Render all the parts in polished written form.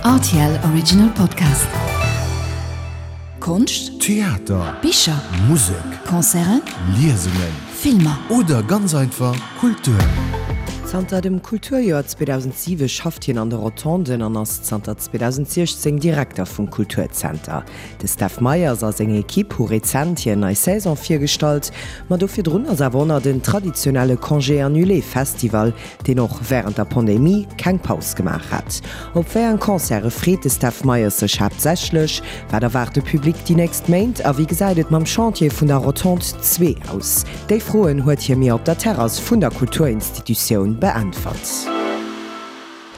Rtl Original Podcast. Konscht, Theater, Bicher, Musek, Concerten, Liesungen, Filmer. Oder ganz einfach Kultur. Zanter dem Kulturjoer 2007 schafft hien an de Rotonden an ass zanter 2016 Direkter vum Kulturzenter. De Steph Meyers a seng Ekipp hu rezent hir nei Saison virgestallt, ma do virdrun ass awer och nach den traditionelle Congé Annulé Festival, deen och wärend der Pandemie keng Paus gemaach hat. Op wéi eng Concerte freet de Steph Meyers sech haaptsächlech? Wat erwaart de Public déi nächst Méint a wéi gesäit et mam Chantier vun der Rotonde 2 aus? Déi Froen huet hie mir op der Terrass vun der Kulturinstitutioun beäntwert.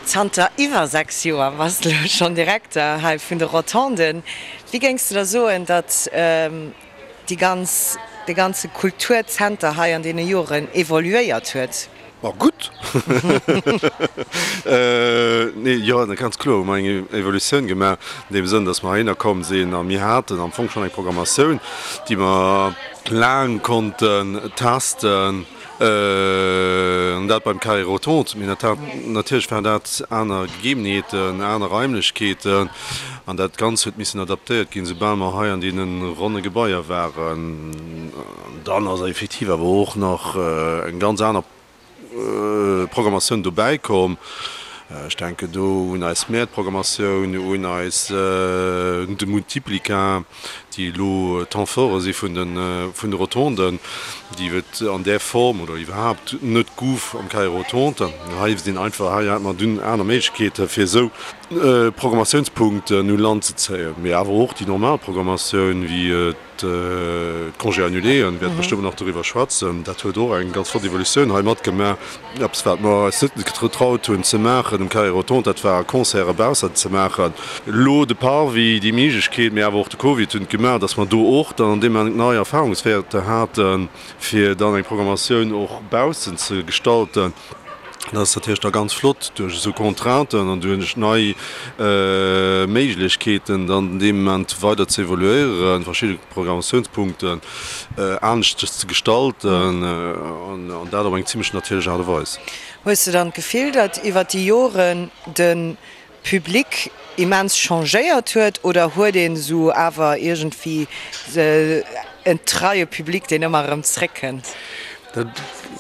Zanter iwwer 6 Joer bass de elo schonn Direkter hei vun de Rotonden. Wéi géings de da soen, datt déi ganz, dee ganze Kulturzenter hei an deene Joren evoluéiert huet? Ma gutt! Nee, jo, ganz kloer hu mer eng Evolutioun gemaach, an deem Sënn, datt mer heihinner komm sinn a mir haten am Fong schonn eng Programmatioun, déi mer laang konnten testen. An dat beim Carré Rotonde. Mee natierlech waren dat aner Gegebenheeten, aner Raimlechkeeten. An dat Ganzt huet missen adaptéiert ginn, soubal mer hei an deene ronne Gebaier waren. An dann ass effektiv awer och nach eng ganz aner Programmatioun dobäi komm. Ech denken do un eis Mäertprogrammatioun, un eis, un de Multiplica, déi elo Temps forte si vun de Rotonden, déi et an där Form oder iwwerhaapt net gouf am Carré Rotonde. Hei sinn einfach, hei hat mer dunn aner Méiglechkeete fir esou Programmatiounspunkten u Land ze zéien, mee awer och déi normal Programmatioun wéi D'Congés annuléen, wäerte bestëmmt nach doriwwer schwätzen. Dat huet och eng ganz flott Evolutioun hei matgemaach. Eppes, wat mer eis net getraut hunn ze maachen um Carré Rotonde, dat war Concerte baussent ze maachen. Elo de Parvis, déi Méiglechkeet, mee awer och de Covid hunn et gemaach, datt mer do och dann an deem Moment nei Erfahrungswäerter haten, fir dann eng Programmatioun och baussent ze gestalten. Dat ass natierlech da ganz flott, duerch esou Contrainten an duerch nei Méiglechkeeten dann dee Moment weider ze evoluéieren, verschidde Programmatiounspunkten aneschters ze gestalten an dat op eng zimlech natierlech Aart a Weis. Hues de dann d'Gefill, datt iwwer déi Joren de Public immens changéiert huet oder huet een esou awer iergendwéi en treie Public, deen ëmmer erëm zréckkënnt? Dat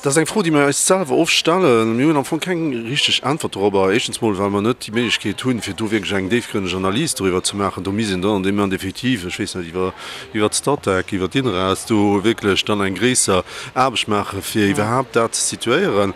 ass eng Fro, déi mir eis selwer oft stellen. Mir hunn am Fong keng richteg Äntwert dorobber. Éischtens mol, well mer net déi Méiglechkeet hunn, fir do wierklech eng déifgrënneg Analys doriwwer ze maachen. Do misst een dann an deem Moment effektiv, ech weess net, iwwer, iwwer d'Statec, iwwer d'INRAS do wierklech dann eng gréisser Aarbecht maachen, fir iwwerhaapt dat ze situéieren.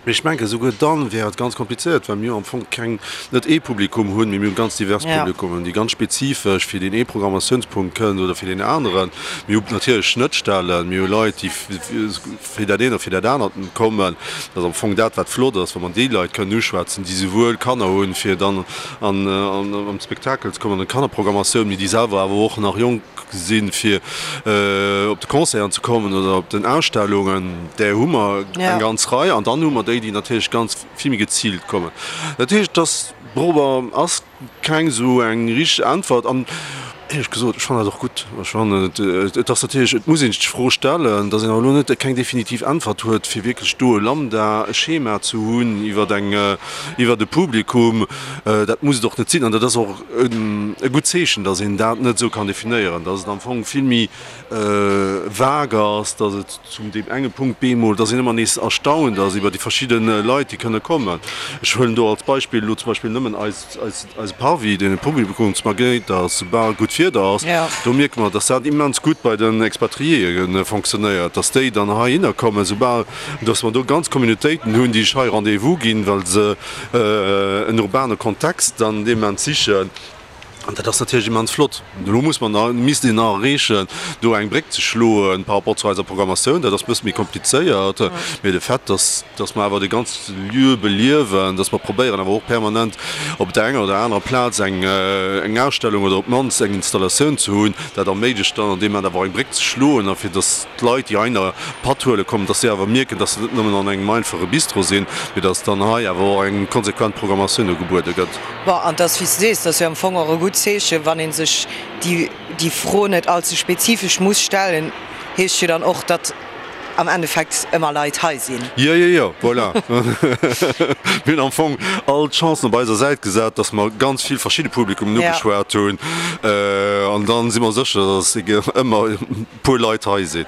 Mee ech mengen, esouguer dann wär et ganz komplizéiert, well mir am Fong keng, net ee Publikum hunn, mee mir hu ganz divers Publikummen, déi ganz spezifesch fir deen ee Programmatiounspunkt kënnen oder fir deen aneren. Mir hu natierlech Schnëttstellen, mir hu Leit, déi fir dat eent oder fir dat anert kommen. Dat ass am Fong dat, wat flott ass, wa mer déi Leit kënnen uschwätzen, déi souwuel Kanner hunn, fir dann an an d'Spektakel ze kommen, an d'Kannerprogrammatioun, mee déi selwer awer och nach jonk sinn, fir op de Concerten ze kommen oder op den Ausstellungen, där hu mer eng ganz Rei. An dann hu mer déi, déi natierlech ganz vill méi geziilt kommen. Dat heescht, dass dorobber ass keng esou eng richteg Äntwert. An éierlech gesot, ech fannen dat och gutt. Ech fannen, et ass natierlech, et muss een sech d'Fro stellen, dass een awer elo net keng definitiv Äntwert huet, fir wierklech do e Lambda, e Schema ze hunn iwwer eng, iwwer e Publikum. Dat muss et och net sinn. An dat ass och e gutt Zeechen, datt een dat net esou kann definéieren, datt et am Fong vill méi vague ass, datt et zum deem enge Punkt bemol, datt een ëmmer nees erstaunt ass iwwer déi verschidde Leit, déi kënne kommen. Ech huelen do als Beispill elo zum Beispill nëmmen eis, eis, eise Parvis, deen e Publikumsmagnéit ass, soubal gutt Wieder ass. Do mierke mer, datt dat immens gutt bei den Expatriéë fonctionnéiert, datt déi dann heihinner kommen, soubal, datt mer do ganz Communautéiten hunn, déi sech hei Rendez-vous ginn, well se en urbane Kontext an deem Moment sichen. An dat ass natierlech immens flott. Elo muss mer nach, misst een nach erreechen, do eng Bréck ze schloe par rapport zu eiser Programmatioun. Dat ass e bësse méi komplizéiert. Mee de Fait, dass, dass mer awer de ganze Lieu beliewen, dass mer probéieren awer och permanent op der enger oder anerer Plaz eng, eng Ausstellung oder op d'mannst eng Installatioun ze hunn, dat erméiglecht dann an deem Moment awer och eng Bréck ze schloen a fir dass, d'Leit, déi heihinner Patt huele kommen, dass si awer mierken, dass se net nëmmen an engem einfache Bistro sinn, mee dass dann hei awer och eng konsequent Programmatioun ugebuede gëtt. Bon, an 't ass, wéi s de sees, 't ass jo am Fong och e gutt Zeechen, wann ee sech déi, déi Fro net allze spezifesch muss stellen, heescht jo dann och, datt. am Endeffekt ëmmer Leit hei sinn. Jo, jo, jo, voilà. Mir hunn am Fong all d'Chancen op eiser Säit gesat, dass mer ganz vill verschidde Publikummen ugeschwat hunn. An dann si mer sécher, dass ëmmer e puer Leit hei sinn.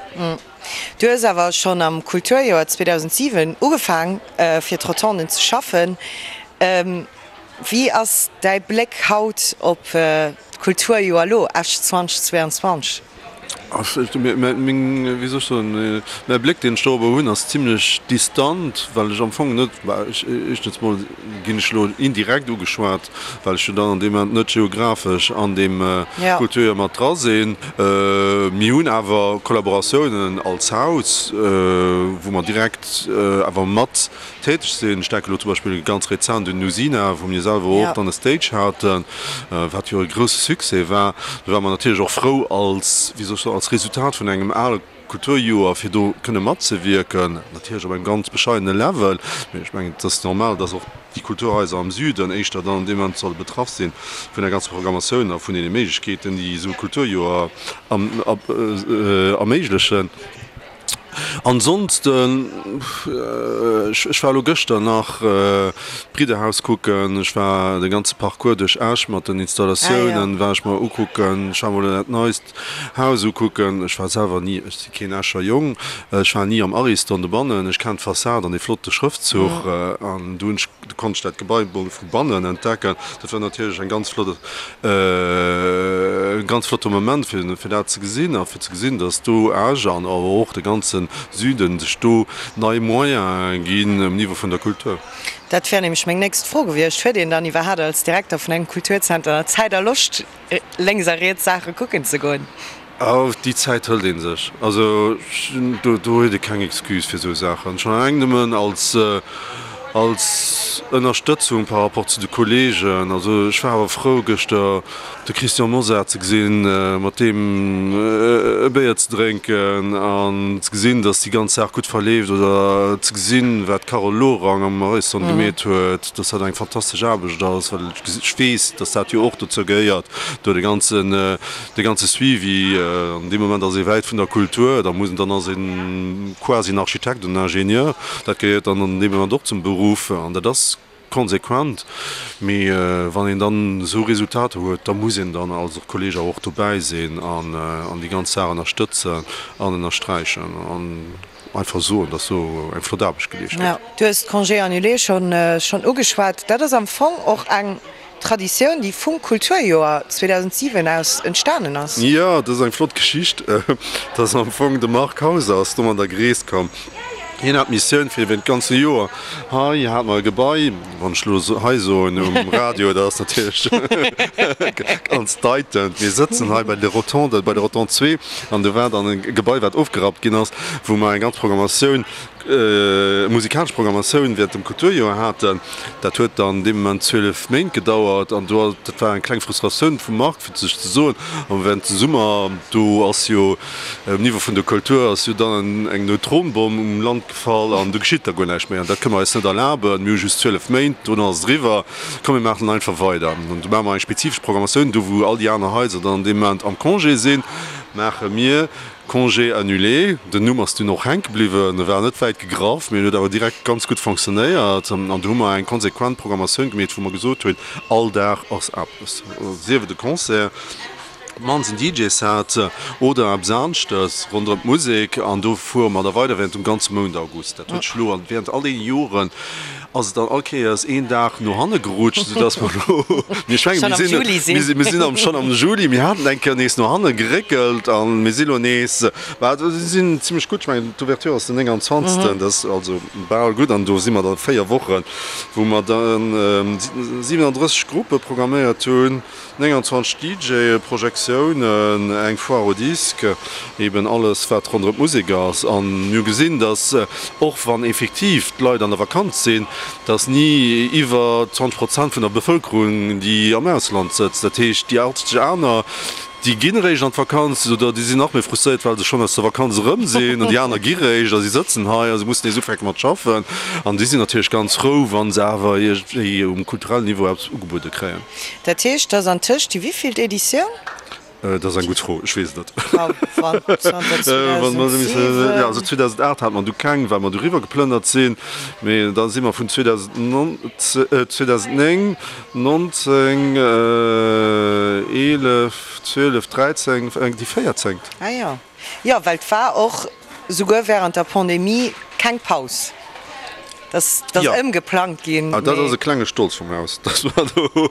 Du hues awer schonn am Kulturjoer 2007 ugefaang fir d'Rotonden ze schaffen. Wéi ass däi Bléck haut op d'Kulturjoer elo, Esch 2022? Meng, wéi soll ech soen, mäi Bléck, deen ech dorobber hunn, ass zimlech distant, well ech am Fong net, éischtens mol ginn ech elo indirekt ugeschwat, well ech jo dann an deem Moment net geographesch an deem Kulturjoer mat dra sinn. Mir hunn awer Kollaboratiounen als Haus, wou mer direkt awer mat täteg sinn. Ech denken elo zum Beispill ganz rezent un Usina, wou mir selwer och dann e Stage haten, wat jo e grousse Succès war. Do ware mer natierlech och frou als, wéi soll ech soen, als Resultat vun engem ale Kulturjoer, fir do kënne matzewierken, natierlech op engem ganz bescheidene Level. Mee ech mengen, et ass normal, dass och déi Kulturhaiser am Süden éischter dann an deem Moment solle betraff si vun der ganzer Programmatioun a vun deene Méiglechkeeten, déi esou e Kulturjoer erméiglechen. Ansonsten, ech war elo gëschter nach d'Bridderhaus kucken, ech war de ganze Parcours duerch Esch mat den Installatiounen war ech mer ukucken, ech war mol dat neist Haus ukucken. Ech war selwer ni, ech si keen Escher Jong, ech war ni am Ariston dobannen, ech kennen d'Fassad an dee flotte Schrëftzuch an do hunn ech, do konnt ech dat Gebai mol vu bannen entdecken. Dat war natierlech eng ganz flott, e ganz flotte Moment fir fir dat ze gesinn a fir ze gesinn, datt do Esch an awer och de ganze Süden sech do nei Moyene ginn um Niveau vun der Kultur. Dat wär nämlech meng nächst Fro gewiescht. Huet een dann iwwerhaat als Direkter vun engem Kulturzenter Zäit a Loscht, lénks a riets Saache kucken ze goen? Oh, déi Zäit hëlt ee sech. Also do huet ee keng Excuse fir esou Saachen. Schonn eleng nëmmen als, als Ënnerstëtzung par rapport zu de Kolleegen. Also ech war awer frou gëschter de Christian Mosar ze gesinn, mat deem e Béier ze drénken an ze gesinn, datt déi ganz Saach gutt verleeft oder ze gesinn, wat d'Carole Lorang am Horizont gemeet huet, datt dat eng fantastesch Aarbecht ass, well ech weess, datt dat jo och dozou gehéiert, do de ganzen, De ganze Suivi, an deem Moment ass ee wäit vun der Kultur, da muss, dann ass ee quasi en Architekt oder en Ingenieur, dat gehéiert dann an deem Moment och zum Beruff an dat ass konsequent. Mee wann een dann esou Resultater huet, da muss een dann als och Kolleg awer och dobäi sinn an déi ganz Saach ënnerstëtzen an ënnersträichen an einfach soen, dass do eng flott Aarbecht geleescht gëtt. Du hues d'Congés annulés schonn ugeschwat. Dat ass am Fong och eng Traditioun, déi vum Kulturjoer 2007 aus entstanen ass. Jo, dat ass eng flott Geschicht. Dat ass am Fong de Marc Hauser ass domadder gereest komm. Hien hat d'Missioun fir iwwert d'ganze Joer, hei hate mer e Gebai, wann ech elo hei soen um Radio, dat ass natierlech ganz deitend, mir sëtzen hei bei de Rotondes, bei der Rotonde 2, an do war dann e Gebai, wat ofgerappt ginn ass, wou mer eng ganz Programmatioun, musikalesch Programmatioun während dem Kulturjoer haten. Dat huet dann dee Moment 12 Méint gedauert an do, dat war eng kleng Frustratioun vum Marc, fir sech ze soen, a während dem Summer, do ass jo um Niveau vun der Kultur ass jo dann eng Neutronbomm um Land gefall an do geschitt da guer näischt méi an dat kënne mer eis net erlaben. Mir hu just 12 Méint, dono ass et eriwwer, komm mir maachen einfach weider. An do maache mer eng spezifesch Programmatioun, do wou all déi aner Haiser dann an deem Moment am Congé sinn, maache mir Congé annulé, den Numm ass dunn och hänke bliwwen, e war net wäit gegraff, mee en huet awer direkt ganz gutt fonctionnéiert. An do hu mer eng konsequent Programmatioun gemeet, wou mer gesot hunn, all Dag ass eppes, sief et e Concert, op d'mannst en DJ-Set oder eppes aneschtes ronderëm d'Musek. An do fuere mer da weider während dem ganze Mount August. Dat huet sech elo während all deene Joren ass et dann all Kéiers een Dag no hanne gerutscht, soudass mer elo, mir ech mengen, mir sinn, mir sinn am schonn am Juli, mir haten eng Kéier nees no hanne geréckelt a mir si lo nees, bah, mir sinn zimlech gutt, ech mengen, d'Ouverture ass den 29., dat ass also bal gutt an do si mer da 4 Wochen, wou mer dann 37 Gruppe programméiert hunn. 29 DJe, Projektiounen, eng Foire au disque, eben alles wat ronderëm d'Musek ass. An mir hu gesinn, datt och wann effektiv d'Leit an der Vakanz sinn, datt ni iwwer 20 Prozent vun der Bevëlkerung déi am Ausland sëtzt. Dat heescht déi 80 aner, déi ginn eréischt an d'Vakanz oder déi sinn nach méi frustréiert, well se schonn aus der Vakanz erëm sinn an déi aner gi réischt a si sëtzen hei a se mussen nees ufänke mat schaffen. An déi sinn natierlech ganz frou, wa se awer iergendwéi um kulturellen Niveau eppes ugebuede kréien. Dat heescht, dass antëscht déi wéivillt Editioun? Dat ass eng gutt Fro, ech weess et net. Also 2008 hate mer du keng, well mer du riwwer geplënnert sinn. Mee da si mer vun 2009, 19, 11, 12, 13, déi véierzéngt. Ah jo. Jo, well et war och souguer während der Pandemie keng Paus. Dat ass ëmgeplangt ginn. Ah, dat ass e klenge Stolz vum Haus, dass mer do,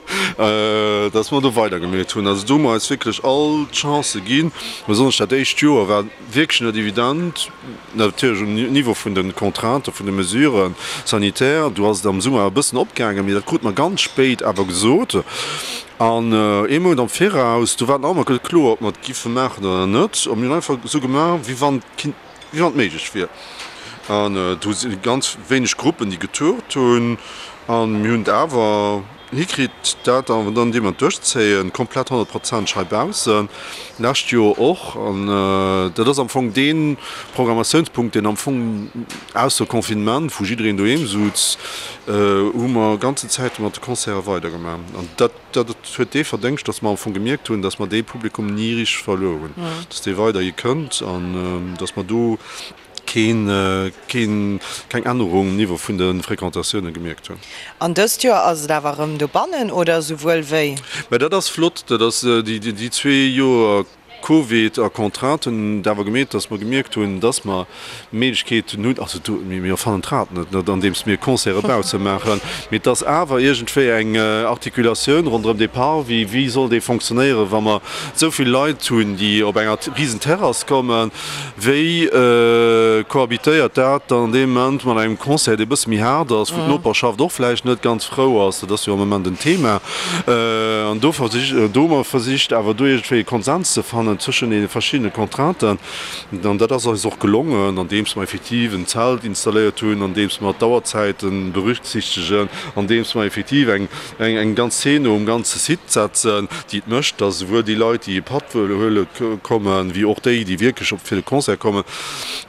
dass mer do weidergemeet hunn. Also do hu mer eis wierklech all d'Chancë ginn. Besonnesch dat éischt Joer war wierklech net evident, natierlech um Niveau vun de Contrainten, vun de Mesures sanitaires. Do ass et am Summer e bëssen opgaangen, mee dat krute mer ganz spéit awer gesot. An ee Mount am Viraus, do war et nach ëmmer net kloer, ob mer et giffe maachen oder net. A mir hunn einfach esou gemaach, wéi wann et kinnt, wéi wann et méiglech wier. An do si ganz wéineg Gruppen, déi getourt hunn. A mir hunn et awer hikritt, dat awer dann deemno duerchzéien, komplett honnertprozenteg hei baussen. Lescht Joer och. An dat ass am Fong dee Programmatiounspunkt, deen am Fong ausser Confinement, wou jiddereen doheem sutz, hu mer ganzen Zäite mat de Concerte weidergemaach. An dat dat huet dee Verdéngscht, datt mer am Fong gemierkt hunn, datt mer dee Publikum ni richteg verluer hunn, datt dee weiderhi kënnt an datt mer do keen, keen, keng Ännerung um Niveau vun de Fréquentatioune gemierkt hunn. An dëst Joer ass et awer erëm dobannen oder esouwuel wéi? Mä dat ass flott, dat ass déi, déi zwee Joer Covid a Contrainten hunn et awer gemeet, datt mer gemierkt hunn, datt mer Méiglechkeeten hunn, also do, mir erfannen d'Rad net, net andeems mir Concerte bausse maachen, mee et ass awer iergendwéi eng Articulatioun ronderëm dee Parvis, wéi soll dee fonctionnéieren, wa mer esou vill Leit hunn, déi op enger Risenterrass kommen, Wéi cohabitéiert dat dann an deem Moment mat engem Concert, dee e bësse méi haart ass, wou d'Noperschaft och vläicht net ganz frou ass? Dat ass jo am Moment en Thema. An do versicht, do hu mer versicht awer do iergendwéi e Konsens ze fannen zwëschen deene verschiddene Contrainten. An dat ass eis och gelongen, andeems mer effektiv en Zelt installéiert hunn, andeems mer d'Auerzäite berücksichtegen, andeems mer effektiv eng, eng ganz Zeen um ganze Site setzen, déi et mécht, dass esouwuel déi Leit, déi e Patt wëlle huele kommen, wéi och déi, déi wierklech op fir de Concert kommen,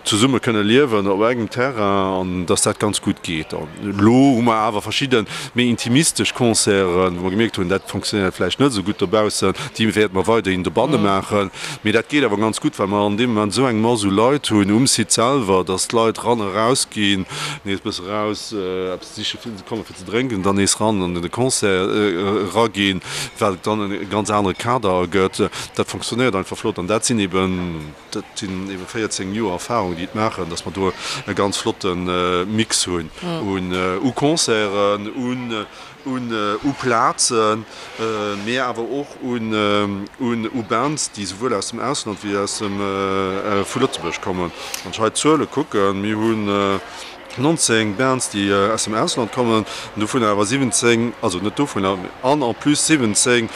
zesumme kënne liewen op engem Terrain an dass dat ganz gutt geet. An elo hu mer awer verschidde méi intimistesch Concerten, wou mer gemierkt hunn, dat fonctionnéiert vläicht net esou gutt dobaussen, déi wäerte mer weiderhin dobanne maachen. Mee dat geet awer ganz gutt, well mer an deem Moment esou eng Mass u Leit hunn um Site selwer, dass d'Leit ran a raus ginn, nees e bësse raus, eppes siche komme fir ze drénken, dann nees ran an de Concert eraginn, wat et dann e ganz anere Kader ergëtt. Dat fonctionnéiert einfach flott an dat sinn eben, dat sinn eben 14 Joer Erfahrung, déi et maachen, dass mer do e ganz flotte Mix hunn u Concerten, u Plazen, mee awer och u Bands, déi souwuel aus dem Ausland wéi aus dem, vu Lëtzebuerg kommen. Wann ech hei d'Zuele kucken, mir hunn 19 Bands, déi aus dem Ausland kommen, an dovunner awer 17, also net dovunner, an en plus 17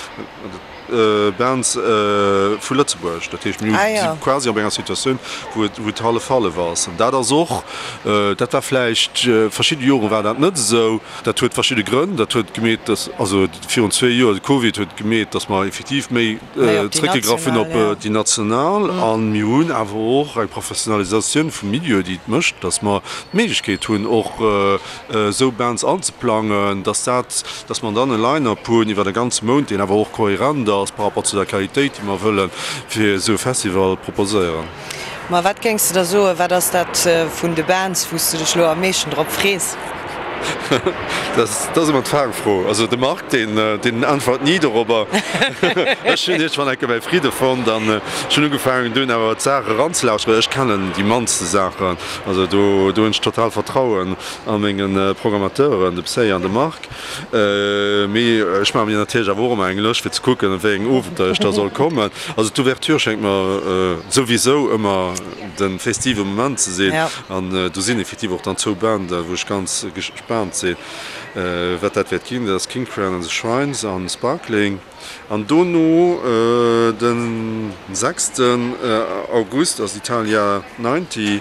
Bands vu Lëtzebuerg. Dat heescht, mir si quasi op enger Situatioun, wou et, wou et hallef-hallef ass. An dat ass och, dat war vläicht, verschidde Jore war dat net esou. Dat huet verschidde Grënn. Dat huet gemeet, dass, also virun zwee Joer, de Covid huet gemeet, dass mer effektiv méi zréckgegraff hunn op déi national. A mir hunn awer och eng Professionalisatioun vum Milieu, déi et mécht, dass mer d'Méiglechkeet hunn, och esou Bands anzeplangen, dass dat, dass mer dann e Line-up hunn iwwer e ganze Mount, deen awer och kohärent ass par rapport zu der Qualitéit, déi mer wëlle fir esou e Festival proposéieren. Ma wat géings de da soen, wat ass dat vun de Bands, wou s de dech elo am meeschten drop frees? Dat ass ëmmer d'Fangfro. Also de Marc, deen, deen äntwert ni dorobber. Ech hunn iergendwann enke mäi Fridde fonnt an ech hunn ugefaangen dunn awer d'Saach eranzelauschteren. Ech kennen déi mannste Saachen, also do, do hunn ech total Vertrauen a menge Programmateuren, de Psy an de Marc. Mee ech maache mir natierlech awer och ëmmer eng Lëscht fir ze kucken, op wéi eng Owenter ech da soll kommen. Also d'Ouverture schéngt mer souwisou ëmmer de festive Moment ze sinn. An do sinn effektiv och dann zwou Banden, wou ech ganz gespaant sinn, wat dat wäert ginn. Dat ass King Crown and the Shrines an Sparkling. An dono de sechsten August ass Italia 90.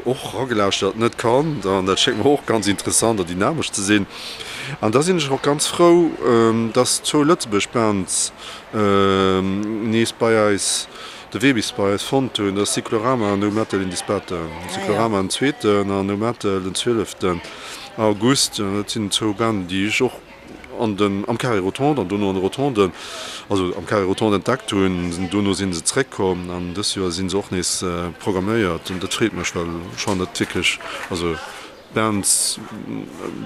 Och eragelauschtert, net kannt, an dat schéngt mer och ganz interessant a dynamesch ze sinn. An da sinn ech och ganz frou, dass zwou Lëtzebuerg Bands nees bei eis de Wee bis bei eis fonnt hunn. Dat ass Cyclorama an No Metal in Disparte. Cyclorama den zweeten an No Metal den zwieleften August. Dat sinn zwou Banden, déi ech och. An den, am Carré Rotonde an dono an de Rotonden, also am Carré Rotonde entdeckt hunn. Dono si se zeréckkomm an dëst Joer si se och nees programméiert an dat freet mech, well ech fannen dat wierklech, also Bands,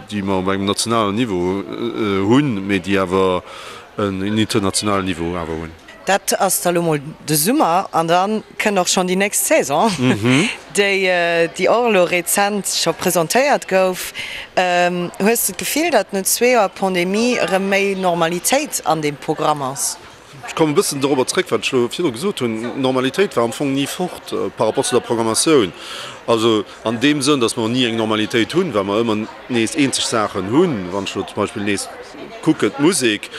déi mer op engem nationalen Niveau hunn, mee déi awer en internationalen Niveau awer hunn. Dat ass da lo mol de Summer an da kënnt och schonn déi nächst Saison, déi déi och elo rezent scho presentéiert gouf. Hues de d'Gefill, datt no zwee Joer Pandemie erëm méi Normalitéit an deem Programm ass? Ech kommen e bëssen dorobber zréck, wat ech elo virdru gesot hunn. D'Normalitéit war am Fong ni fort par rapport zu der Programmatioun. Also an deem Sënn, datt mer ni eng Normalitéit hunn, well mer ëmmer nees eenzeg Saachen hunn. Wann ech elo zum Beispill nees kucken, d'Musek,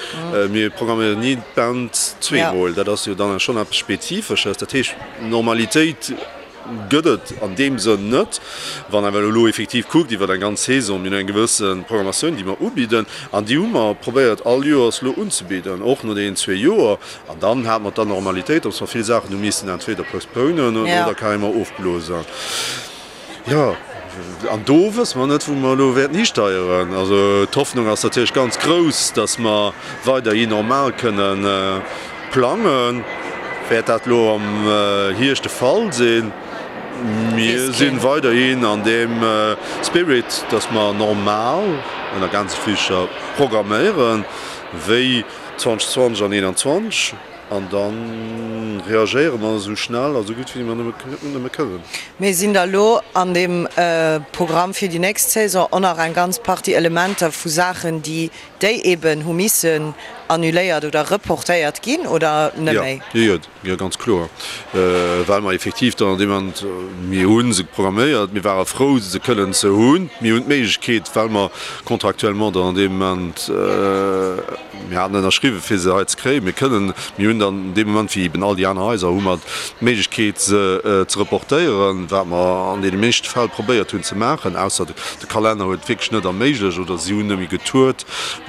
mir programméieren ni d'Band zweemol. Dat ass jo dann schonn eppes Spezifesches. Dat heescht, Normalitéit gëtt et an deem Sënn net. Wann awer elo effektiv kuckt iwwer eng ganz Saison, mir hunn eng gewësse Programmatioun, déi mer ubidden an déi hu mer probéiert all Joers elo unzebidden, och no deenen zwee Joer. An dann hate mer d'Anormalitéit, datt mer vill Saachen hu missen entweder postponen oder carrément ofblosen. Jo, an do wësse mer net, wou mer elo wäerten histeieren. Also d'Hoffnung ass natierlech ganz grouss, datt mer weiderhi normal kënne plangen. Wäert dat elo am Hierscht de Fall sinn? Mir si weiderhin an deem Spirit, datt mer normal, ënner Gänsefüßcher, programméieren, wéi 2020 an 2021. An da reagéiere mer esou schnell a esou gutt wéi mer nëmme kënnen. Mee sinn da lo an deem Programm fir déi nächst Saison och nach eng ganz Partie Elementer vu Saachen, déi déi eeben hu missen annuléiert oder reportéiert ginn, oder net méi? Jo, jo, ganz kloer. Well mer effektiv dann an deem Moment, mir hu se programméiert, mir ware frou se kënnen ze hunn, mir hunn d'Méiglechkeet, well mer contractuellement dann an deem Moment, Mir haten ënnerschriwwen, fir se hei ze kréien. Mir kënnen, mir hunn dann dee Moment, wéi eben all déi aner Haiser, hu mer d'Méiglechkeet, se ze reportéieren, wat mer an deene meeschte Fäll probéiert hunn ze maachen, ausser de Kalenner huet et wierklech net erméiglecht oder si hunn net méi getourt.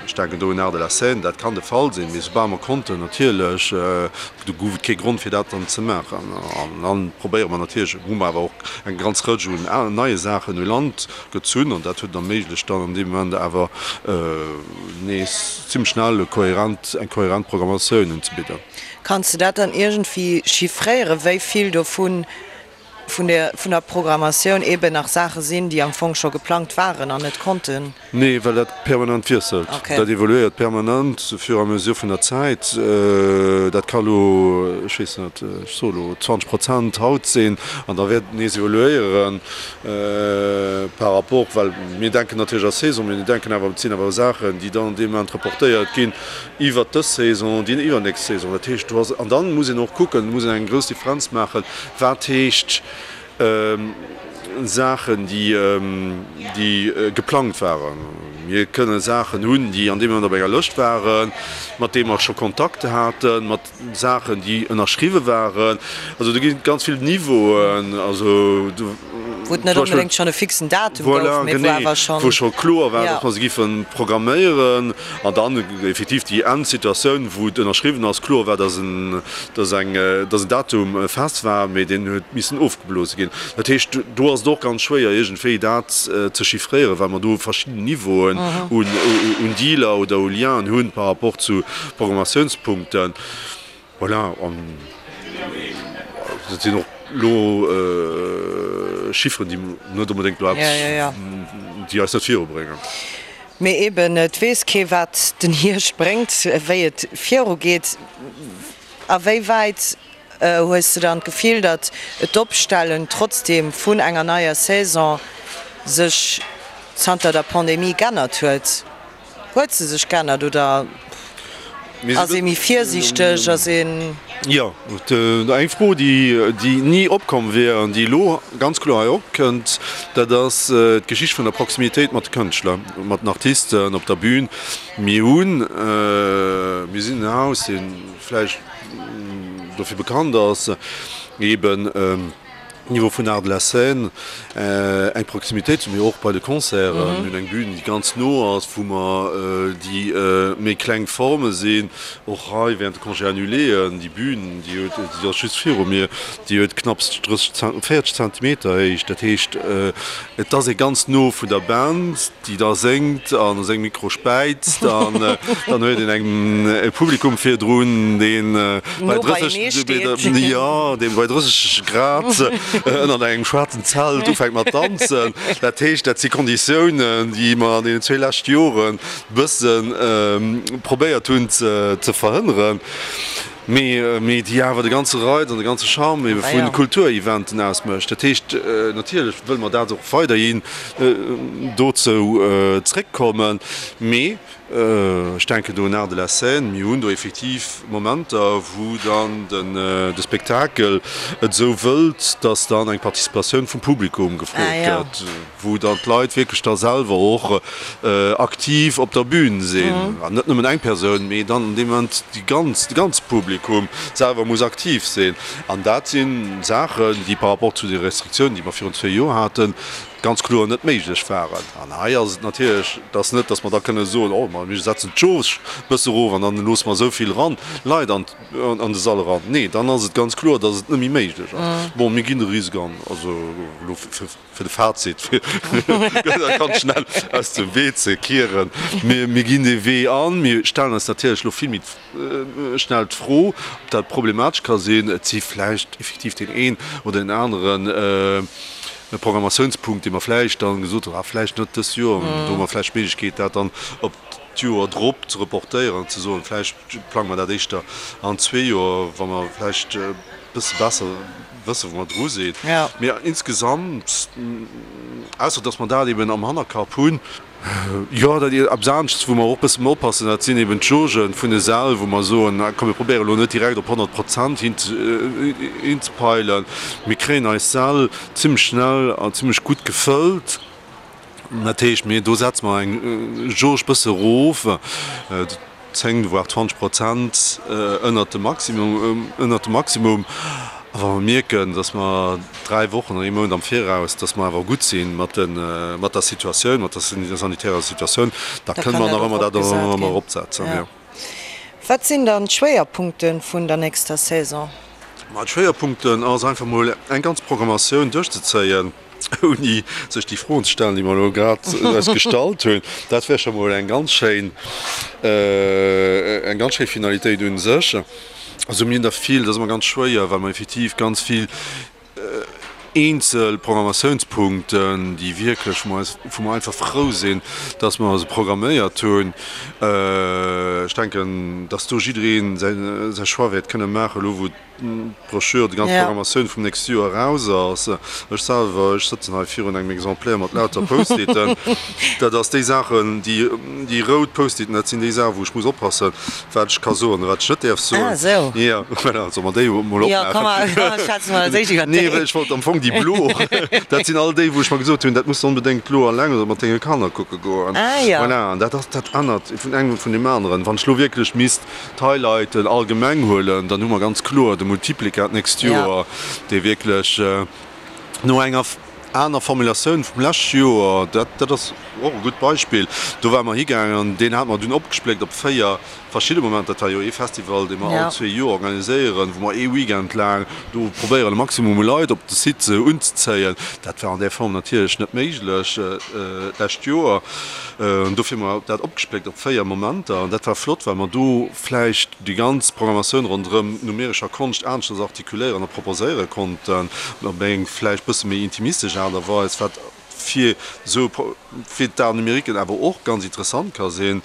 Ech denken do un Arts de la Seine, dat kann de Fall sinn. Mee soubal mer konnten, natierlech, do gouf et kee Grond, fir dat dann ze maachen. An da probéiere mer natierlech, hu mer awer och eng ganz Rëtsch un neie Saachen u Land gezunn an dat huet et erméiglecht, dann an deem Moment awer, nees zimmlech schnell e kohärent, eng kohärent Programmatioun unzebidden. Kanns de dat dann iergendwéi chiffréieren, wéi vill dovun vun der vun der Programmatioun eeben nach Saache sinn, déi am Fong scho geplangt waren an net konnten? Nee, well dat permanent wiesselt. Dat evoluéiert permanent au fur et à mesure vun der Zäit. Dat ka lo, ech weess net, ech soe lo 20 Prozent haut sinn an da wäert et nees evoluéieren. Par rapport, well mir denken natierlech a Saison, mee mir denken awer, et sinn awer Saachen, déi dann an deem Moment reportéiert ginn iwwert dës Saison, déi iwwernächst Saison. Dat heescht, do ass, an dann muss een och kucken, muss een eng grouss Differenz maachen, wat heescht Saachen, déi, déi geplangt waren. Mir kënne Saachen hunn, déi an deem Moment op enger Lëscht waren, mat deem mer scho Kontakt haten, mat. Saachen, déi ënnerschriwwe waren. Also do ginn et ganz vill Niveauen. Also do. Wou et net onbedéngt schonn e fixen Datum gouf, mee wou awer schonn. Voilà, genee, wou scho kloer war, datt mer se giffe programméieren. An dann effektiv déi Endsituatioun, wou et ënnerschriwwen ass, kloer war, datt en, datt eng, datt en Datum fest war, mee deen huet missen ofgeblose ginn. Dat heescht, do ass et och ganz schwéier iergendwéi dat ze chiffréieren, well mer do verschidden Niveauen un, un Dealer oder u Lienen hunn par rapport zu Programmatiounspunkten, voilà, an dat sinn och elo Chifferen, déi net onbedéngt elo eppes, déi eis net virubréngen. Mee eben, et weess kee wat den Hierscht bréngt, wéi et virugeet. A wéi wäit hues de dann d'Gefill, datt d'Opstellen trotzdeem vun enger neier Saison sech zanter der Pandemie g'ännert huet? Huet se sech g'ännert oder ass ee méi virsiichteg? Ass een. Jo, eng Fro, déi ni opkomm wier an déi elo ganz kloer hei opkënnt, dat ass d'Geschicht vun der Proximitéit mat de Kënschtler, mat den Artisten op der Bühn. Mir hunn, mir sinn en Haus, dee vläicht dofir bekannt ass, eeben. Niveau vun Arts de la Scène eng Proximitéit hu mir och bei de Concerten. Mir hunn eng Bühn, déi ganz no ass, wou mer déi méi kleng Forme sinn. Och hei während de Congés annuléen, déi Bühn, déi huet, déi ass just viru mir, déi huet knapps 30, 40 Zentimeter Héicht. Dat heescht, et ass ee ganz no vun der Band. déi da séngt an a sengem Mikro späizt an dann huet een eng e Publikum virdrun, deen bei 30, jo, dee bei 30 Grad ënnert engem schwaarzen Zelt ufänkt mat danzen. Dat heescht, dat si Konditiounen, déi mer an deenen zwee leschte Joren e bësse probéiert hunn ze verhënneren. Mee déi awer de ganze Reiz an de ganze Charme ebe vu Kultureventen ausmécht. Dat heescht, natierlech wëlle mer dat och weiderhin dozou zréckkommen, mee ech denken do un Arts de la Scène, mir hunn do effektiv Momenter, wou dann de Spektakel et esou wëllt, dass dann eng Participatioun vum Publikum gefrot gëtt. wou dann d'Leit wierklech da selwer och aktiv op der Bühn sinn, an net nëmmen eng Persoun, mee dann an deem Moment déi ganz, de ganze Publikum selwer muss aktiv sinn. An dat si Saachen, déi par rapport zu de Restriktiounen, déi mer virun zwee Joer haten, ganz kloer net méiglech waren. An hei ass et natierlech, et ass net, datt mer da kënne soen, oh ma mir setzen d'Jauge e bësse erof an dann loosse mer esou vill eran, Leit an an de Sall eran. Nee, dann ass et ganz kloer, datt et net méi méiglech ass. Bon, mir ginn de Risk an, also elo fir. Fir de Fazit, fir dat ganz schnell aus dem Wee ze kieren, Mir ginn dee Wee an. Mir stellen eis natierlech elo vill méi schnell d'Fro, ob dat problematesch ka sinn. Et si vläicht effektiv deen een oder deen anere Programmatiounspunkt, dee mer vläicht dann gesot hunn, ah vläicht net dëst Joer, do hu mer vläicht d'Méiglechkeet, dat dann op d'Joer drop ze reportéieren an ze soen, vläicht plange mer dat éischter an zwee Joer, wa mer vläicht e bësse besser wëssen, wou mer dru sinn. Mee insgesamt, ausser datt mer dat eben am Hannerkapp hunn, jo, dat eppes aneschts, wou mer och e bësse méi oppassen, dat sinn eben d'Jaugen vun de Säll, wou mer soen, komm mir probéieren elo net direkt op 100 Prozent hinzepeilen. Mir kréien eis Säll zimmlech schnell an zimmlech gutt gefëllt. Dat heescht, mir, do setze mer eng Jauge bësse erof, 10 voire 20 Prozent ënnert dem Maximum, ënnert dem Maximum. A wa mer mierken, datt mer dräi Wochen oder ee Mount am Viraus, datt mer awer gutt si mat de, mat der Situatioun, mat der sanitärer Situatioun, da kënne mer nach ëmmer dat ëmmer eropsetzen, jo. Wat sinn dann d'Schwéierpunkte vun der nächster Saison? Ma d'Schwéierpunkten ass einfach mol eng ganz Programmatioun duerchzezéien. ouni sech déi Froen ze stellen, déi mer elo grad eis gestallt hunn. Dat wär scho mol eng ganz schéin, eng ganz schéi Finalitéit u sech. Also mir hunn der vill, dat ass ëmmer ganz schwéier, well mer effektiv ganz vill eenzel Programmatiounspunkten, déi wierklech, wou mer eis, wou mer einfach frou sinn, dass mer se programméiert hunn. Ech denken, dass do jidderee säi Choix wäert kënne maachen, elo wou d'Brochure, déi ganz Programmatioun vum nächste Joer eraus ass. Ech selwer, ech sëtzen hei virun engem Exemplaire mat lauter Post-iten. Dat ass déi Saachen, déi, déi rout Post-iten, dat sinn déi Saachen, wou ech muss oppassen, wat ech ka soen a wat ech net däerf soen. Ah, esou. Jo, voilà, solle mer déi emol opmaachen? Jo, komm, mer schwätzen emol als éischt iwwer déi. Nee, well ech wollt am Fong déi blo, dat sinn all déi, wou ech mer gesot hunn, dat muss de onbedéngt elo alleng oder mat denge Kanner kucke goen. Ah, jo. Voilà, an dat ass, dat ännert vun engem vun deem aneren. Wann ech elo wierklech misst d'Highlighten allgemeng huelen, dann hu mer ganz kloer de Multiplica d'nächst Joer, dee wierklech no enger aner Formulatioun vum leschte Joer, dat dat ass och e gutt Beispill, do ware mer higaangen an deen hate mer dunn opgespléckt op 4 verschidde Momenter. Dat war jo ee Festival, dee mer all zwee Joer organiséieren, wou mer ee Weekend laang do probéieren, e Maximum u Leit op de Site unzezéien. Dat war an där Form natierlech net méiglech d'lescht Joer. Dofir hu mer dat opgespléckt op 4 Momenter an dat war flott, well mer do vläicht déi ganz Programmatioun ronderëm numerescher Konscht aneschters artikuléieren a proposéiere konnten, op eng vläicht bësse méi intimistesch Aart a Weis, wat fir esou fir d'Arts numériquen awer och ganz interessant ka sinn.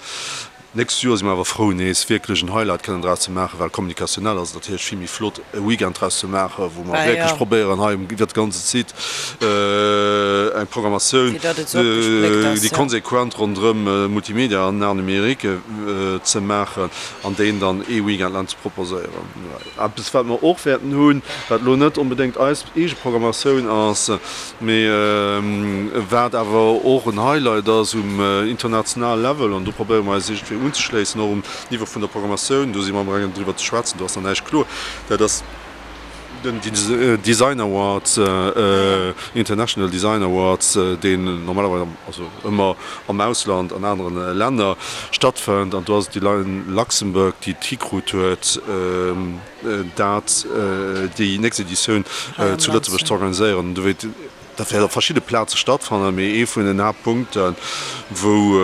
D'nächst Joer si mer awer frou nees wierklech en Highlight kënnen draus ze maachen, well kommunikationnell ass et natierlech vill méi flott e Weekend draus ze maachen, wou mer wierklech probéieren hei iwwert de ganze Site eng Programmatioun, déi konsequent ronderëm Multimedia an Art numérique ze maachen an deen dann ee Weekend laang ze proposéieren. Eppes wat mer och wäerten hunn, wat elo net onbedéngt eis eege Programmatioun ass, Mee wat awer och en Highlight ass um internationale Level, an do probéiere mer eis iergendwéi unzeschléissen, och um Niveau vun der Programmatioun, do si mer amgaangen driwwer ze schwätzen, do ass nach näischt kloer, dat ass. Den Design Awards, International Design Awards, deen normalerweis, also ëmmer am Ausland, an anere Länner stattfënnt. An do ass et déi Luxembourg, déi et hikrut huet, dat déi nächst Editioun zu Lëtzebuerg ze organiséieren. Dat wäert op verschidde Plaze stattfannen, mee ee vun den Haaptpunkten, wou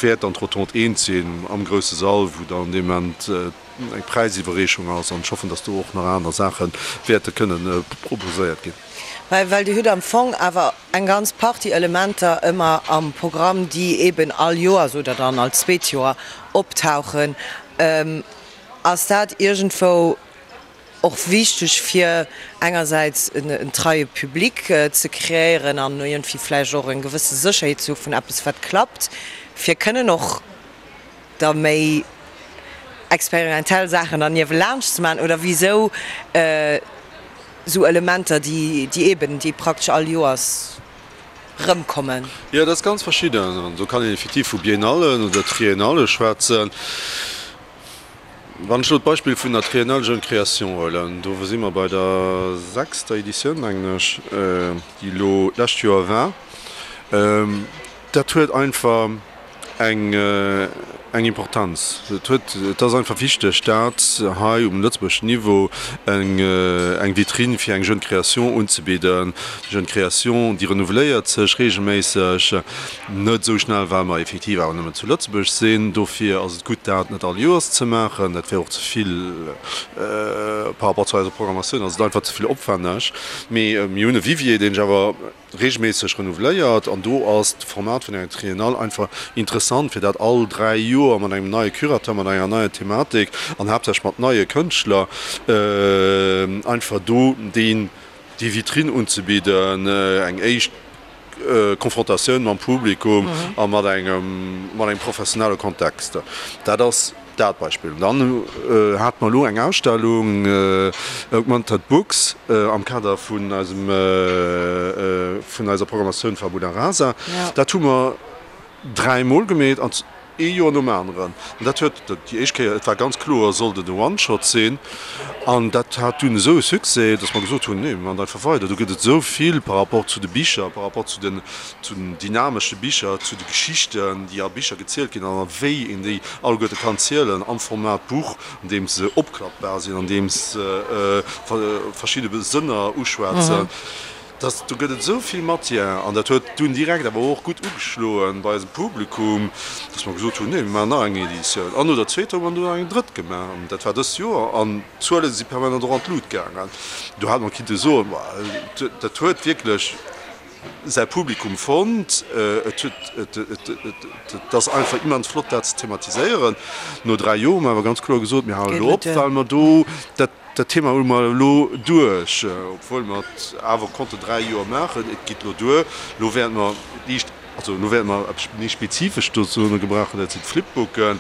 wäert dann d'Rotonde eent sinn, am grousse Sall, wou dann dee Moment eng Präisiwwerreechung ass. An ech hoffen, datt do och nach aner Saache wäerte kënnen proposéiert ginn. Well Dir hutt am Fong awer eng ganz Partie Elementer ëmmer am Programm, déi eeben all Joers oder dann all zweet Joer optauchen. Ass dat iergendwou Och wichteg fir engersäits en treie Public ze kreéieren an iergendwéi vläicht och eng gewësse Sécherheet ze hu vun eppes wat klappt, fir kënnen och da méi experimentell Saachen dann niewelaanscht ze maachen oder wisou esou Elementer déi déi eben déi praktesch all Joers rëmkommen? Jo, dat ass ganz verschidden an do kann een effektiv vu Biennallen oder Triennale schwätzen. Wann ech elo d'Beispill vun der Triennale Jeune Création huelen, do si mer bei der sechster Editioun, mengen ech, déi elo d'lescht Joer war, dat huet einfach eng eng Importanz. Et huet, et ass einfach wichteg, dat hei um lëtzebuergeschen Niveau eng eng Vitrine fir eng Jeune Création unzebidden. Déi Jeune Création, déi renouveléiert sech regelméisseg. Net esou schnell, well mer effektiv awer nëmmen zu Lëtzebuerg sinn. Dofir ass et gutt, dat net all Joers ze maachen. Dat wär och ze vill par rapport zu eiser Programmatioun, ass et einfach ze vill opwänneg. Mee mir hunn e Vivier, deen sech awer reegelméisseg renouveléiert. An do ass d'Format vun enger Triennale einfach interessant, fir dat all 3 Joer mat engem neie Curateur, mat enger neier Thematik an haaptsächlech mat neie Kënschtler einfach do déi Vitrine unzebidden, eng éischt Konfrontatioun mam Publikum a mat engem mat engem professionelle Kontext. Dat ass dat Beispill. Dann hate mer elo eng Ausstellung Augmented Books am Kader vun eisem vun eiser Programmatioun Fabula Rasa. Dat hu mer dräimol gemeet an ee Joer nom aneren. An dat huet déi éischt Kéier, et war ganz kloer, sollt et e One-Shot sinn. An dat hat dunn esou e Succès, datt mer gesot hunn, nee, mir maachen einfach weider. Do gëtt et esou vill par rapport zu de Bicher, par rapport zu den, zu den dynamesche Bicher, zu de Geschichten, déi a Bicher gezielt ginn an a wéi een déi alleguerte kann zielen am Format Buch, andeems se opklappbar sinn, andeems se verschidde Sënner uschwätzen. Dass, do gëtt et esou vill Matière an dat huet dunn direkt awer och gutt ugeschloen bei eisem Publikum, dass mer gesot hunn, nee, mir maachen nach eng Editioun. An no der zweeter hu mer dunn nach eng drëtt gemaach an dat war dëst Joer an d'Zuele si permanent och an d'Lut gaangen. Do hat mer kinnte soen, ma dat huet wierklech säi Publikum fonnt, et huet, et, et, et ass einfach immens flott dat ze thematiséieren. No 3 Joer hu mer awer ganz kloer gesot, mir halen elo op, well mer do dat, Dat Thema hu mer elo duerch, obwuel mer et awer konnten 3 Joer maachen. Et geet elo duer. Elo wäerte mer liicht, also elo wäerte mer eppes méi Spezifescht dozou gebrauchen, dat sinn d'Flipbooken.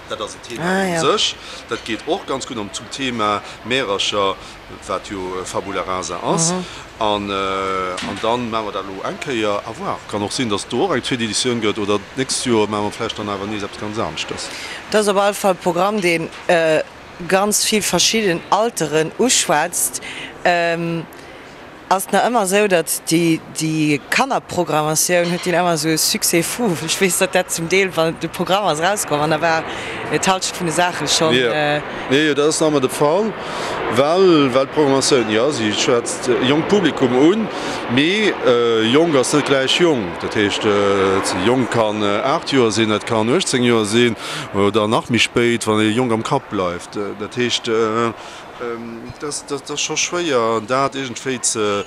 Dat ass en Thema u sech. Dat geet och ganz gutt an zum Thema Märercher, wat jo Fabula rasa ass. An dann maache mer dat elo eng Kéier. À voir. Kann och sinn, datt et do och eng zweet Editioun gëtt oder d'nächst Joer maache mer vläicht dann awer nees eppes ganz aneschtes. Et ass op alle Fall e Programm, deen ganz vill verschidden Alteren uschwätzt, ass et nach ëmmer esou, datt déi Kannerprogrammatioun huet déi ëmmer esou e Succès fou. Ech weess, datt dat zum Deel, wann de Programm ass erauskomm an da war d'Halschent vun de Saache schonn. Jo, jo, dat ass nach ëmmer de Fall, well well d'Programmatioun, jo, si schwätzt e jonkt Publikum un, mee jonk ass net gläich jonk. Dat heescht, jonk kann 8 Joer sinn, et kann 18 Joer sinn. Oder nach méi spéit, wann ee jonk am Kapp bleift. Dat heescht, et ass scho schwéier, dat iergendwéi ze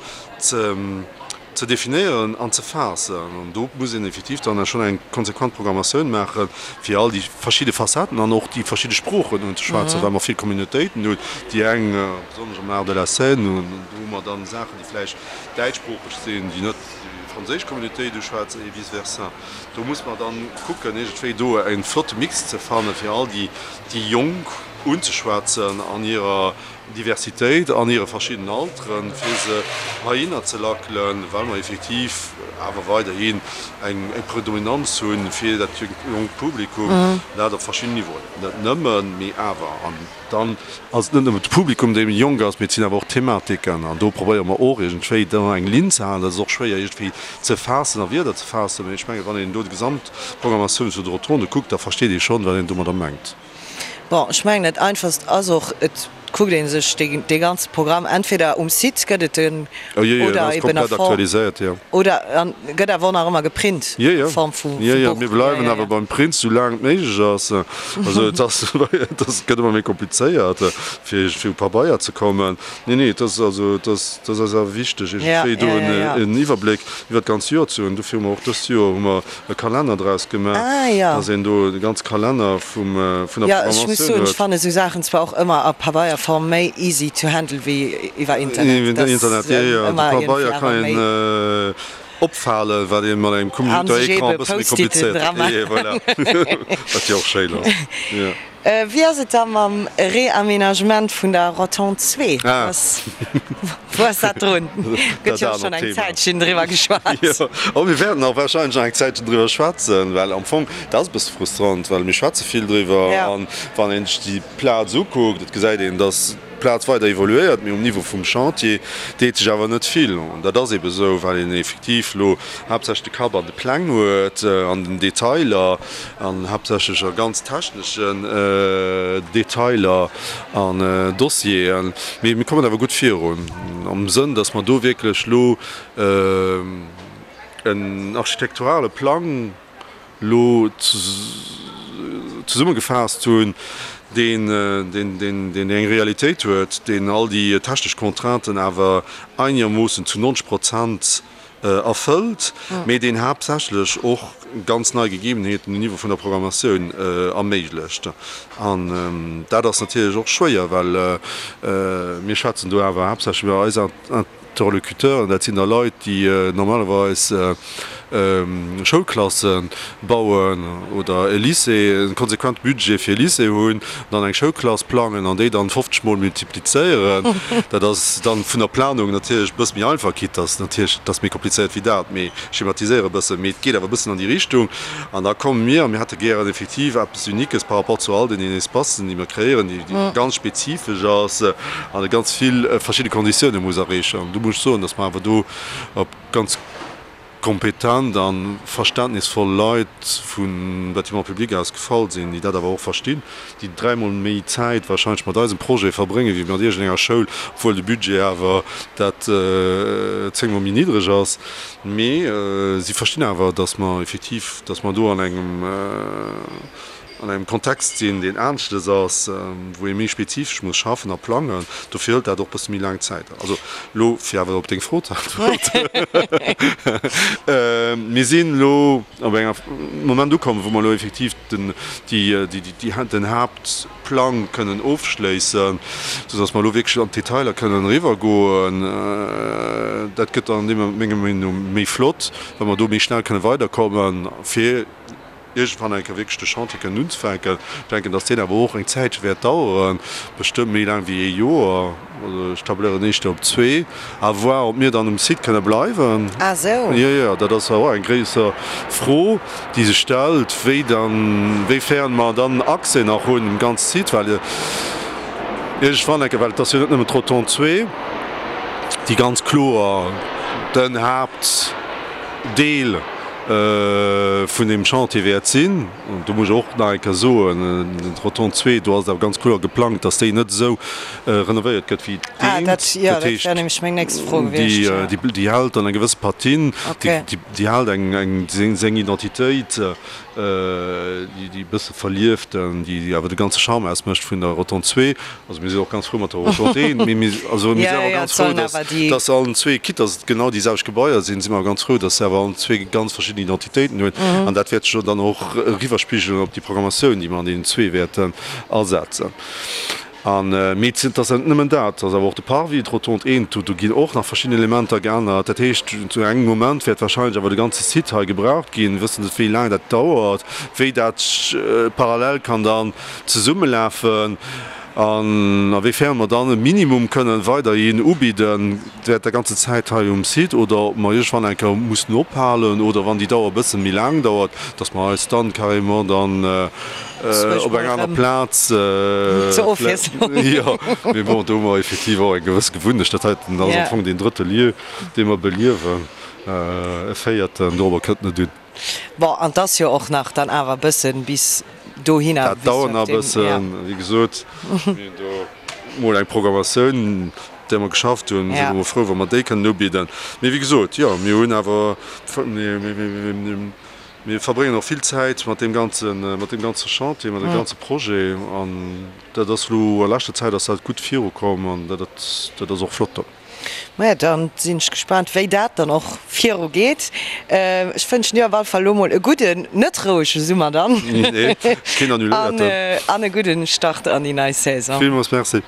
definéieren an ze faassen. An do muss een effektiv dann schonn eng konsequent Programmatioun maachen, fir all déi verschidde Facetten an och déi verschidde Sproochen unzeschwätzen, well mer vill Communautéiten hunn, déi eng, besonnesch am Art de la scène, do hu mer dann Saachen, déi vläicht däitschsproocheg sinn, déi net déi franséisch Communautéit uschwätzen, et vice versa. Do muss mer dann kucken, iergendwéi do e flotte Mix ze fannen, fir all déi, déi Jonk. unzeschwätzen an hirer Diversitéit, an hire verschiddenen Alteren, fir se heihinner ze lackelen, well mer effektiv awer weiderhin eng Predominanz hu fir dat jonkt Publikum, dat op verschiddenen Niveauen, net nëmmen, mee awer. An dann ass et net nëmmen de Publikum, dee méi jonk ass, mee et sinn awer och d'Thematiken. An do probéiere mer och iergendwéi do eng Linn ze halen. Dat ass och schwéier iergendwéi ze faassen, a Wierder ze faassen, mee ech mengen, wann een do déi Gesamtprogrammatioun vun de Rotonde kuckt, da versteet ee schonn, wat een domadder mengt. Bon, ech mengen dat einfachst ass och, et kuckt ee sech dee ganze Programm entweder um Site gëtt et en oder eben a Form, oder an gëtt awer och nach ëmmer geprint a Form vu Buch. Jo, jo, mir bleiwen awer beim Print sou laang et méiglech ass. Also et ass, et ass, et gëtt ëmmer méi komplizéiert fir fir u Pabeier ze kommen. Nee, nee, et ass also, et ass, et ass eis awer wichteg iergendwéi do en Iwwerbléck iwwer d'ganz Joer ze hunn. Dofir hu mer och dëst Joer hu mer e Kalenner draus gemaach, dass een do de ganze Kalenner vum, vun der Programmatioun huet. Jo, ech muss soen, ech fannen esou Saachen zwar och ëmmer a Pabeierform méi easy to handle wéi iwwer Internet. Iwwer Internet, jo, jo, de Pabeier kann een opfalen, wat ee mat engem Computerécran e bësse méi komplizéiert. Jo, voilà, wat jo och schéin ass, jo. Wéi ass et da mam Reaménagement vun der Rotonde 2? Wou ass dat drun? Gëtt jo och schonn eng Zäitchen driwwer geschwat. Jo, a mir wäerten och warscheinlech nach eng Zäitchen driwwer schwätzen, well am Fong, dat ass e bësse frustrant, well mir schwätze vill driwwer an wann een sech déi Plaz ukuckt, et gesäit een, datt d'Plaz weider evoluéiert, mee um Niveau vum Chantier deet sech awer net vill. An dat ass eebe sou, well een effektiv elo haaptsächlech de Kapp an de Pläng huet, an den Detailer an haaptsächlech a ganz techneschen Detailer an Dossieren. Mee mir kommen awer gutt virun, am Sënn, datt mer do wierklech elo en architekturale Plang elo zesummegefaasst hunn, deen eng Realitéit huet, deen all déi technesch Contrainten awer einegermoossen zu 90 Prozent erfëllt, mee deen haaptsächlech och ganz nei Gegebenheeten um Niveau vun der Programmatioun erméiglecht. An dat ass natierlech och schwéier, well mir schwätzen do awer haaptsächlech iwwer eis Interlocuteuren, dat sinn da Leit, déi normalerweis Schoulklasse bauen oder e Lycée, e konsequente Budget fir e Lycée hunn, dann eng Schoulklass plangen an déi dann 50 mol multiplizéieren. Dat ass dann vun der Planung natierlech e bësse méi einfach, quitte dass natierlech, et ass méi komplizéiert wéi dat, mee ech schematiséiere e bëssen, mee et geet awer e bëssen an déi Richtung. An da komme mir a mir hätte gären effektiv eppes Uniques par rapport zu all deenen Espacen, déi mir kreéieren, déi ganz spezifesch ass an ganz vill verschidde Konditioune muss erreechen. An do muss ech soen, dass mer awer do op ganz kompetent a verständnisvoll Leit vum Bâtiment public aus gefall sinn, déi dat awer och verstinn, déi dräimol méi Zäit wahrscheinlech mat eisem Projet verbréngen, wéi mat iergendenger Schoul, obwuel de Budget awer dat zéngmol méi niddreg ass. Mee si verstinn awer, dass mer effektiv, dass mer do an engem, an engem Kontext sinn, deen aneschtes ass, wou ee méi spezifesch muss schaffen a plangen. Dofir hëlt dat och e bësse méi laang Zäit. Also elo, fir awer op deng Fro ze äntweren, Mir sinn elo op engem Moment ukomm, wou mer elo effektiv den, déi, déi, den Haaptplang kënnen ofschléissen, soudass mer elo wierklech an d'Detailer kënnen eriwwergoen. Dat gëtt dann deem menger Meenung no méi flott, wa mer do méi schnell kënne weiderkommen, fir iergendwann eng Kéier wierklech de Chantier kënnen unzefänken. Ech denken, datt deen awer och eng Zäitche wäert daueren, bestëmmt méi laang wéi ee Joer. Also ech tabléieren éischter op zwee. À voir, ob mir dann um Site kënne bleiwen. Ah sou. Jo, jo, dat ass awer och eng gréisser Fro, déi sech stellt, wéi dann, wéifern mer dann Accès nach hunn um ganze Site, well iergendwann eng Kéier, well et ass jo net nëmmen d'Rotonde 2, déi ganz kloer den Haaptdeel vun deem Chantier wäert sinn. An do muss ech och nach eng Kéier soen, d'Rotonde 2, do ass et awer ganz kloer geplangt, dass déi net esou renovéiert gëtt wéi d'eent. Dat heescht, déi hält dann eng gewësse Patine, déi hält eng seng Identitéit, déi e bësse verlieften, déi awer de ganze Charme ausmécht vun der Rotonde 2. Also mir sinn och ganz frou mat der Rotonde 1, mee mir, also mir sinn awer ganz frou, dass, dass se allen zwee, quitte dass et genau déi selwecht Gebaier sinn, si mer awer ganz frou, dass se awer allen zwee ganz verschidden Identitéiten hunn. An dat wäert sech dann och eriwwerspigelen op déi Programmatioun, déi mer an deenen zwee wäerten asetzen. An, mee et ass net nëmmen dat, et ass awer och de Parvis, d'Rotonde eent, do ginn och nach verschidden Elementer geännert. Dat heescht, zu engem Moment wäert wahrscheinlech awer de ganze Site hei gebraucht ginn. Mir wëssen net, wéi laang dat dauert, wéi dat parallel kann dann zesummelafen an a wéi fern mer dann e Minimum kënnen weiderhin ubidden während der ganzer Zäit hei um Site oder ob mer iergendwann eng Kéier mussen ophalen oder wann déi Dauer e bësse méi laang dauert, dass mer eis dann carrément dann op eng aner Plaz Zur Ofwiesslung. Jo, mee bon, do hu mer effektiv och eng gewëss Gewunnecht. Dat heiten ass am Fong deen drëtte Lieu, dee mer beliewen. E véierten, dorobber kënnt net un. Bon, an 't ass jo och nach dann awer e bëssen bis dohinner. Dat dauert nach e bëssen. Wéi gesot, mir hunn do mol eng Programmatioun, där mer geschafft hunn. Si mer frou, wa mer déi kënnen ubidden. Mee wéi gesot, jo, mir hunn awer, mir verbréngen och vill Zäit mat deem ganzen, mat deem ganze Chantier, mat deem ganze Projet. An dat ass elo a leschter Zäit ass dat gutt virukomm an dat, dat ass och flott. Maja, dann sinn ech gespaant wéi dat dann och viru geet. Ech wënschen dir op alle Fall elo mol e gudden, net rouege Summer dann Nee, keen annuléierten. an e gudden Start an déi nei Saison. Villmools Merci.